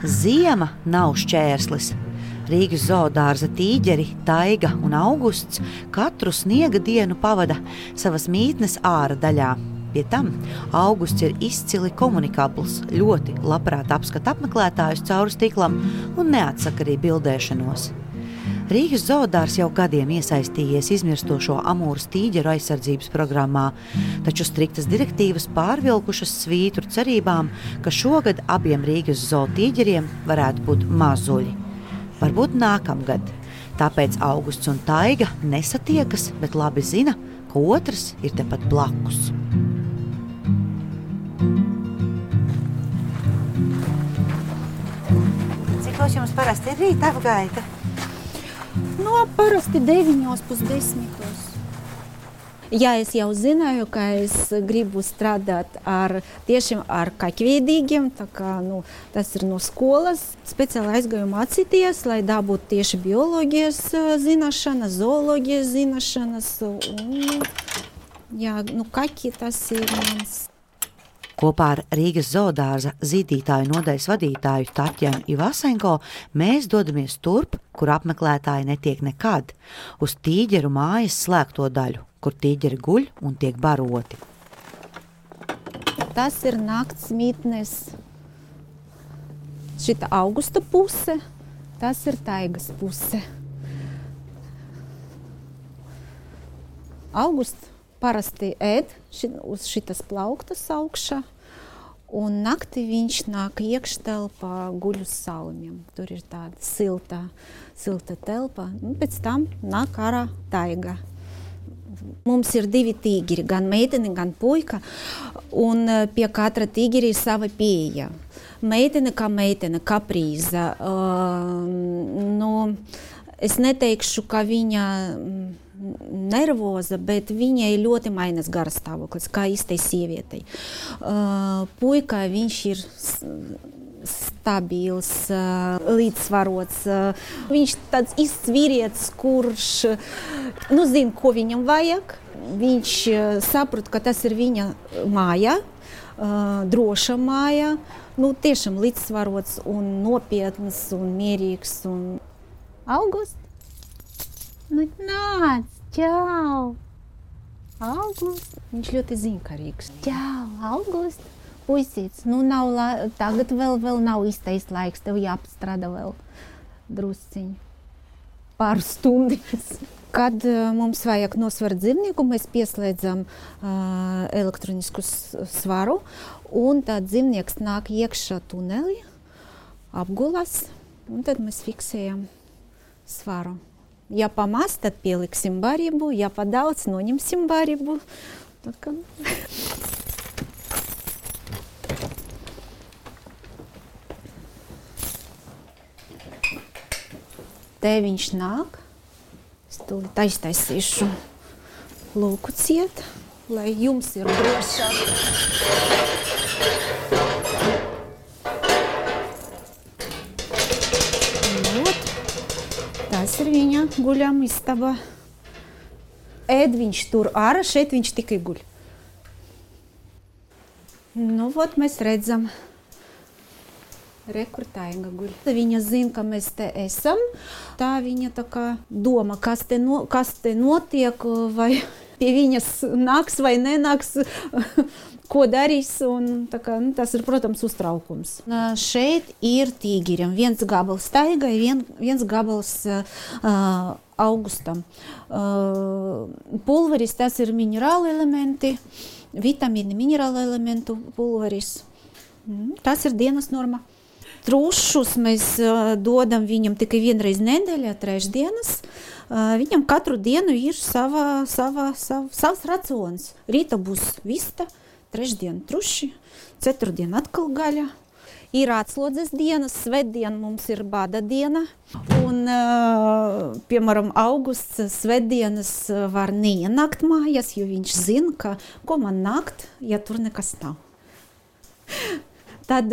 Ziema nav šķērslis. Rīgas zoodārza tīģeri, Taiga un Augusts katru sniega dienu pavada savas mītnes āra daļā. Pie tam Augusts ir izcili komunikabls, ļoti labprāt apskata apmeklētājus cauri stiklam un neatsaka arī bildēšanos. Rīgas zoodārs jau gadiem iesaistījies izmirstošo amūras tīģeru aizsardzības programmā, taču striktas direktīvas pārvilkušas svītru cerībām, ka šogad abiem Rīgas zootīģeriem varētu būt mazuļi. Varbūt nākamgad. Tāpēc Augusts un Taiga nesatiekas, bet labi zina, ka otrs ir tepat blakus. Cikos jums parasti ir rīta apgaita? Parasti 9:30. Ja es jau zināju, ka es gribu strādāt tieši ar kaķveidīgiem, tā kā, tas ir no skolas. Speciāli aizgāju mācīties, lai dabūtu tieši bioloģijas zināšanas, zooloģijas zināšanas. Kaķi tas ir mans. Kopā ar Rīgas zoodārza zīdītāju nodaļas vadītāju Tatjanu Ivasenko mēs dodamies turp, kur apmeklētāji netiek nekad, uz tīģeru mājas slēgto daļu, kur tīģeri guļ un tiek baroti. Tas ir nakts mītnes. Šita Augusta puse, tas ir Taigas puse. Augusts parasti ēd uz šitas plauktas augšā, un naktī viņš nāk iekštelpā guļ uz saumiem. Tur ir tāda silta telpa, pēc tam nāk ārā Taiga. Mums ir 2 tīģeri, gan meitene, gan puika, un pie katra tīģeri ir sava pieeja. Meitene, kaprīza. Es neteikšu, ka viņa nervoza, bet viņai ļoti mainās garastāvoklis, kā īstai sievietei. Puika, viņš ir stabils, līdzsvarots. Viņš tāds īsts vīrietis, kurš zina, ko viņam vajag. Viņš saprot, ka tas ir viņa māja, droša māja. Tiešām līdzsvarots un nopietns un mierīgs. August? Nāc, čau! August! Viņš ļoti zinkarīgs. Čau, August! Puisīts, tagad vēl nav īstais laiks, tev jāpastrādā vēl drusciņi. Pāris stundas. Kad mums vajag nosvert dzīvnieku, mēs pieslēdzam elektronisku svaru, un tad dzīvnieks nāk iekšā tunelī, apgulas, un tad mēs fiksējam svaru. Ja pamaz, tad pieliksim barību, ja padaudz, noņemsim barību. Te viņš nāk. Es tūlīt aiztaisīšu lūku ciet, lai jums ir drošāk. Tas ir viņa guļama istaba. Ēd viņš tur ārā, šeit viņš tikai guļ. Mēs redzam. Kur Taiga guļ. Viņa zina, ka mēs te esam. Tā viņa tā kā doma, kas te notiek, vai pie viņas nāks vai nenāks, ko darīs. Tas ir, protams, uztraukums. Šeit ir tīģerim. Viens gabals Taigai, viens gabals Augustam. Pulveris, tas ir minerāli elementi, vitamīni minerāli elementu pulveris. Tas ir dienas norma. Trušus mēs dodam viņam tikai vienreiz nedēļā, trešdienas. Viņam katru dienu ir savs racions. Rīta būs vista, trešdien truši, ceturtdien atkal gaļa. Ir atslodzes dienas, svētdien mums ir bada diena. Un, piemēram, Augusts svētdienas var neienākt mājās, jo viņš zina, ko man nākt, ja tur nekas nav. Tad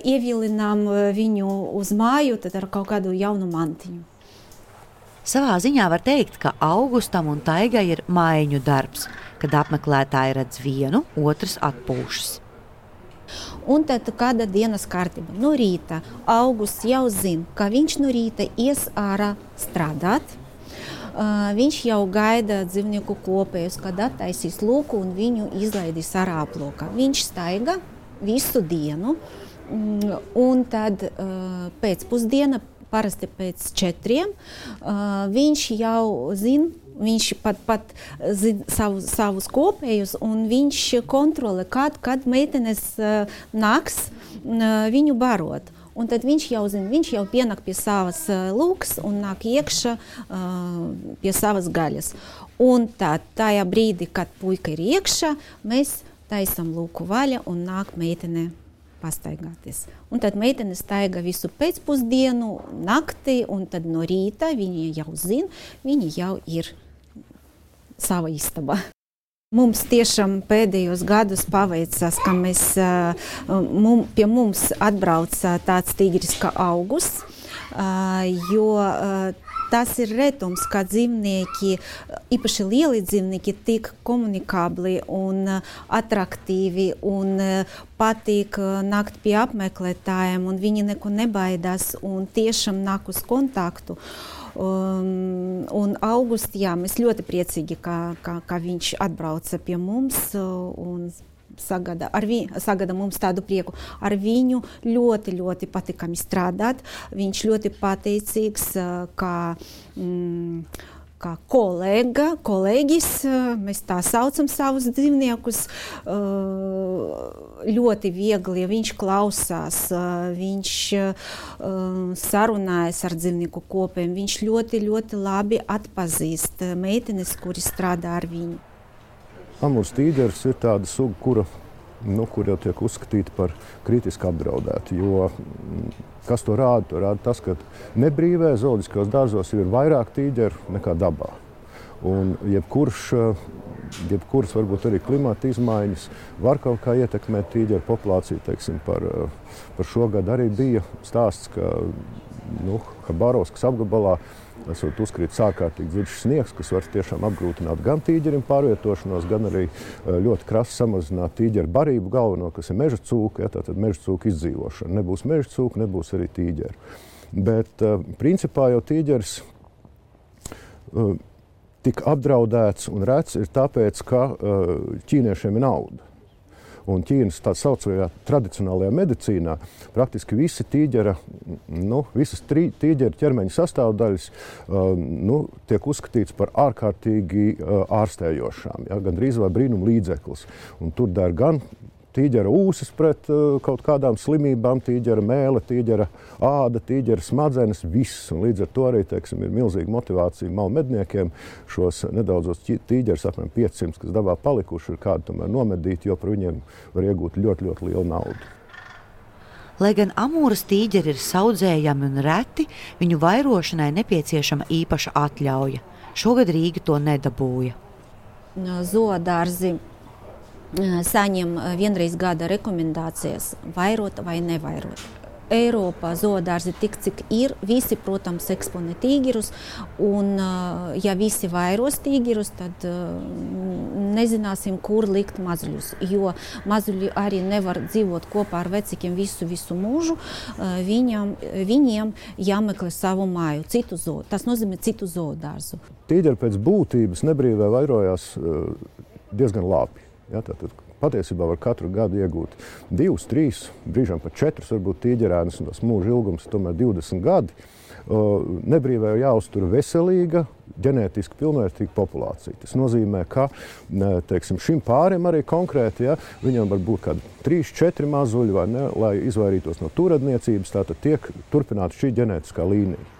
ievilinām viņu uz māju ar kaut kādu jaunu mantiņu. Savā ziņā var teikt, ka Augustam un Taigai ir maiņu darbs, kad apmeklētāji redz vienu, otrs atpūšas. Un tad kāda dienas kārtība? No rīta Augusts jau zina, ka viņš no rīta ies ārā strādāt. Viņš jau gaida dzīvnieku kopējus, kad attaisīs lūku un viņu izlaidīs ārā aplokā. Viņš staiga visu dienu, un tad pēcpusdiena, parasti pēc 4, viņš jau zina, viņš pat zina savus kopējus, un viņš kontrolē, kad meitenes nāks viņu barot. Un tad viņš jau zina, viņš jau pienāk pie savas lūkas un nāk iekšā pie savas gaļas. Un tad tajā brīdī, kad puika ir iekšā, mēs taisam lūku vaļa un nāk meitene pastaigāties. Un tad meitene staiga visu pēcpusdienu, naktī, un tad no rīta viņa jau zina, viņa jau ir sava istaba. Mums tiešām pēdējos gados paveicās, ka pie mums atbrauca tāds tigris kā Augusts, jo tas ir retums, ka dzīvnieki, īpaši lieli dzīvnieki, tik komunikabli un atraktīvi un patīk nākt pie apmeklētājiem, un viņi neko nebaidās un tiešām nāk uz kontaktu. Un Augusts, jā, mēs ļoti priecīgi, ka viņš atbrauca pie mums un sagada mums tādu prieku. Ar viņu ļoti, ļoti patīkami strādāt. Viņš ļoti pateicīgs, kā kolēģis, mēs tā saucam savus dzīvniekus, ļoti viegli, viņš klausās, viņš sarunājas ar dzīvnieku kopiem, viņš ļoti, ļoti labi atpazīst meitenes, kuri strādā ar viņu. Amūras tīģeris ir tāda suga, kura jau tiek uzskatīta par kritiski apdraudētu, jo kas to rāda? To rāda tas, ka nebrīvē zooloģiskajos dārzos ir vairāk tīģeru nekā dabā. Un jebkuras varbūt arī klimata izmaiņas var kaut kā ietekmēt tīģeru populāciju. Teiksim, par šogad arī bija stāsts, ka Habarovskas apgabalā esot uzkrītis ārkārtīgi dziļš sniegs, kas var tiešām apgrūtināt gan tīģerim pārvietošanos, gan arī ļoti krasi samazināt tīģeru barību galveno, kas ir meža cūka, ja, tātad meža cūka izdzīvošana. Nebūs meža cūka, nebūs arī tīģeri. Bet principā jau tīģeris tik apdraudēts un rets ir tāpēc, ka ķīniešiem ir nauda. Un Ķīnas tā saucamajā tradicionālajā medicīnā praktiski visi visas tīģeru ķermeņa sastāvdaļas tiek uzskatīts par ārkārtīgi ārstējošām, ja, gandrīz vai brīnum līdzeklis. Un tur der gan tīģera ūsas pret kaut kādām slimībām, tīģera mēle, tīģera āda, tīģera smadzenes, viss. Un līdz ar to arī, teiksim, ir milzīga motivācija malmedniekiem šos nedaudzos tīģerus, apmēram 500, kas dabā palikuši, ir kādu tomēr nomedīt, jo par viņiem var iegūt ļoti, ļoti lielu naudu. Lai gan Amūras tīģeri ir saudzējami un reti, viņu vairošanai nepieciešama īpaša atļauja. Šogad Rīga to nedabūja. Zoodārzi saņem vienreiz gada rekomendācijas vairot vai nevairot. Eiropā zoodārzi tik, cik ir, visi, protams, eksponē tīģerus, un ja visi vairos tīģerus, tad nezināsim, kur likt mazuļus, jo mazuļi arī nevar dzīvot kopā ar vecākiem visu mūžu, viņiem jāmeklē savu māju, tas nozīmē citu zoodārzu. Tīģeri pēc būtības nebrīvē vairojās diezgan labi. Ja, tātad patiesībā var katru gadu iegūt 2, 3, brīžām pat 4 varbūt tīģerēnus, un tas mūža ilgums tomēr 20 gadi. Nebrīvē jāuztur veselīga, ģenētiski pilnvērtīga populācija. Tas nozīmē, ka teiksim, šim pārim arī konkrēti, ja, viņam var būt kādi 3, 4 mazuļi, vai ne, lai izvairītos no turadniecības, tātad tiek turpināta šī ģenētiskā līnija.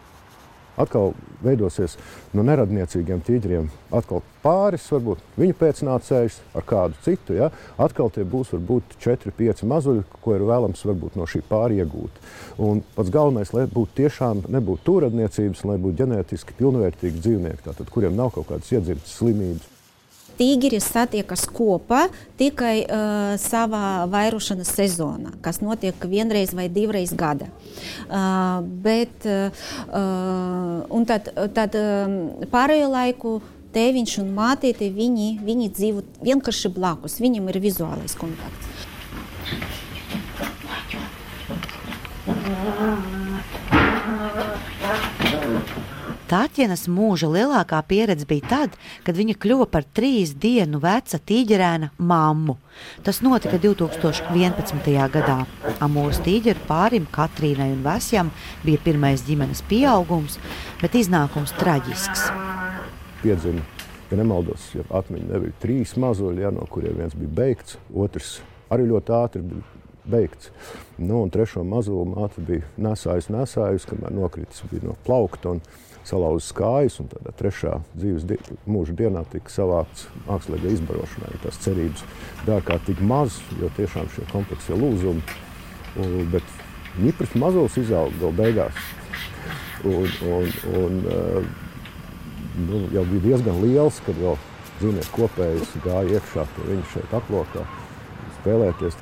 Atkal veidosies no neradniecīgiem tīģeriem atkal pāris, varbūt viņu pēcnācējs ar kādu citu. Ja? Atkal tie būs varbūt 4, 5 mazuļi, ko ir vēlams varbūt no šī pāri iegūt. Un pats galvenais, lai būtu tiešām nebūtu turadniecības, lai būtu ģenētiski pilnvērtīgi dzīvnieki, tātad, kuriem nav kaut kādas iedzimtas slimības. Tīģeri satiekas kopā tikai savā vairošanas sezonā, kas notiek vienreiz vai 2 gada. Un tad pārējo laiku tēviņš un mātīte, viņi dzīvo vienkārši blakus, viņam ir vizuālais kontakts. Tātjenas mūža lielākā pieredze bija tad, kad viņa kļuva par 3 dienu veca tīģerēna mammu. Tas notika 2011. gadā. Amūras tīģeru pārim Katrīnai un Vesjam bija pirmais ģimenes pieaugums, bet iznākums traģisks. Piedzima, ja nemaldos, ja atmiņa nebija 3 mazuļi, no kuriem viens bija beigts, otrs arī ļoti ātri bija beigts. Un 3. mazuli māte bija nesājusi, kamēr nokritis bija no plaukta un salauzis kājas, un tādā 3. dzīves mūža dienā tika savākts mākslīgai izbarošanai. Tās cerības bija ārkārtīgi maz, jo tiešām šie kompleksie lūzumi, bet ņipris mazulis izauga vēl beigās. Jau bija diezgan liels, kad vēl dzīvnieku kopējs gāja iekšā pie viņa šeit aplokā spēlēties.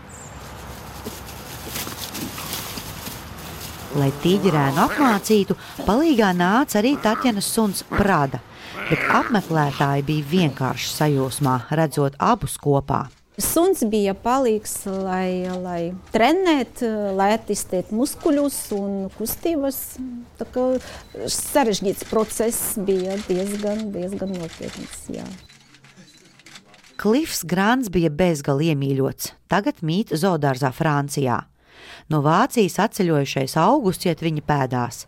Lai tīģerēnu apmācītu, palīgā nāca arī Tātjenas suns Prada, bet apmeklētāji bija vienkārši sajūsmā, redzot abus kopā. Suns bija palīgs, lai trenēt, lai attīstīt muskuļus un kustības. Tā kā sarežģīts process bija diezgan nopietns, jā. Klifs Grants bija bezgali iemīļots, tagad mīt zoodārzā Francijā. No Vācijas atceļojušais Augusts iet viņa pēdās,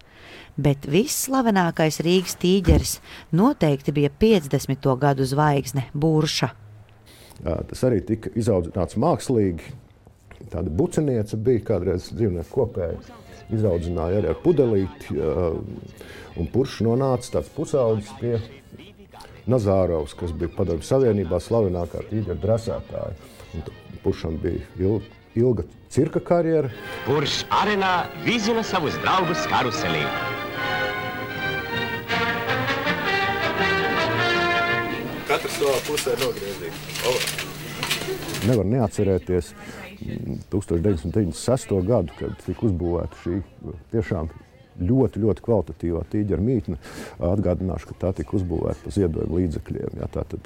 bet visslavenākais Rīgas tīģeris noteikti bija 50. gadu zvaigzne Burša. Tas arī tika izaudzināts mākslīgi. Tāda bucenieca bija kādreiz dzīvnieku kopēja. Izaudzināja arī ar pudelīti, un Buršs nonāca tāds pusaudzis pie Nazārovs, kas bija Padomju Savienībā slavenākā tīģeru dresētāja. Buršam bija ilga cirka karjera. Buršs arenā vizina savus draugus karuselī. Katrs savā pusē nogriezīgs. Nevar neatcerēties 1996. gadu, kad tika uzbūvēta šī tiešām ļoti kvalitatīvā tīģera mītne. Atgādināšu, ka tā tika uzbūvēta pa ziedojumu līdzekļiem. Tātad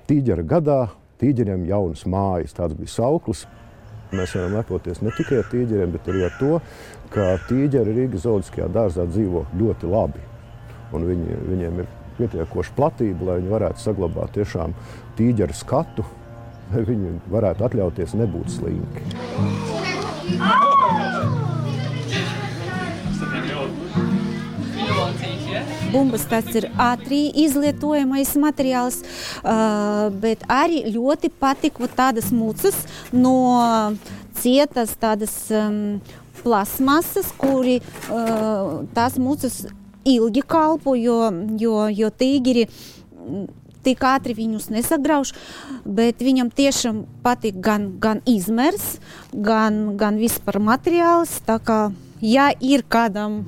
tīģera gadā, tīģeriem jaunas mājas, tāds bija sauklis. Mēs varam lepoties ne tikai ar tīģeriem, bet arī ar to, ka tīģeri Rīgas zooloģiskajā dārzā dzīvo ļoti labi. Un viņiem ir pietiekoša platība, lai viņi varētu saglabāt tiešām tīģeru skatu, lai viņi varētu atļauties nebūt slinki. Bumbas tas ir ātri izlietojamais materiāls, bet arī ļoti patika tādas mucas no cietas tādas plasmasas, kuri tās mucas ilgi kalpo, jo tīģeri tik ātri viņus nesagrauž, bet viņam tiešām patīk gan izmērs, gan vispār materiāls. Tā kā, ja ir kādam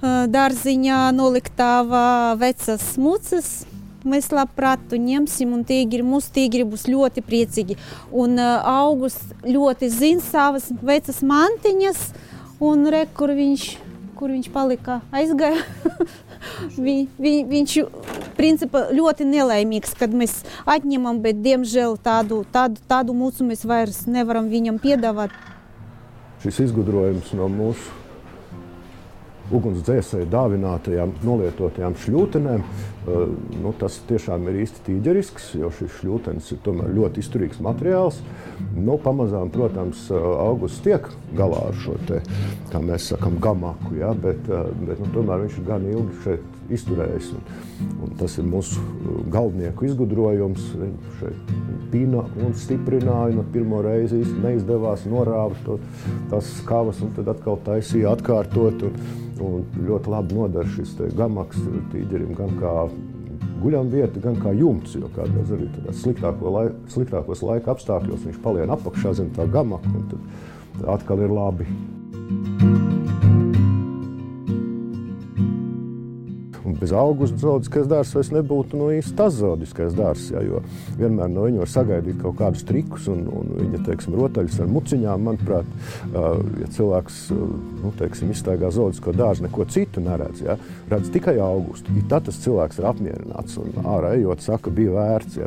dārziņā noliktava vecas mucas, mēs labprāt to ņemsim, un mūsu tīģeri būs ļoti priecīgi. Un Augusts ļoti zina savas vecas mantiņas, un kur viņš palika, aizgāja. Viņš principā ļoti nelaimīgs, kad mēs atņemam, bet diemžēl tādu mucu mēs vairs nevaram viņam piedāvāt. Šis izgudrojums no mūsu ugunsdzēsēju dāvinātajām nolietotajām šļūtenēm, tas tiešām ir īsti tīģerisks, jo šis šļūtenis ir tomēr ļoti izturīgs materiāls. Pamazām, protams, Augusts tiek galā ar šo te, kā mēs sakam, gamaku, bet tomēr viņš ir gan ilgi šeit izturējis. Un tas ir mūsu galvnieku izgudrojums. Viņš šeit pina un stiprināja, no pirmo reizi īsti neizdevās, norāva tās skavas un tad atkal taisīja atkārtot. Un ļoti labi nodara šis gamaks tīģerim gan kā guļamvieta, gan kā jumts, jo kādreiz arī sliktākos laika apstākļos viņš palien apakšā zem tā gamaka, un tad atkal ir labi. Un bez Augusta zooloģiskais dārzs vairs nebūtu īsti tas zooloģiskais dārzs, jo vienmēr no viņa var sagaidīt kaut kādus trikus un viņa, rotaļus ar muciņām, manuprāt, ja cilvēks, izstaigā zooloģisko dārzu, neko citu neredz, redz tikai Augustu. Tad tas cilvēks ir apmierināts un ārā ejot saka, bija vērts.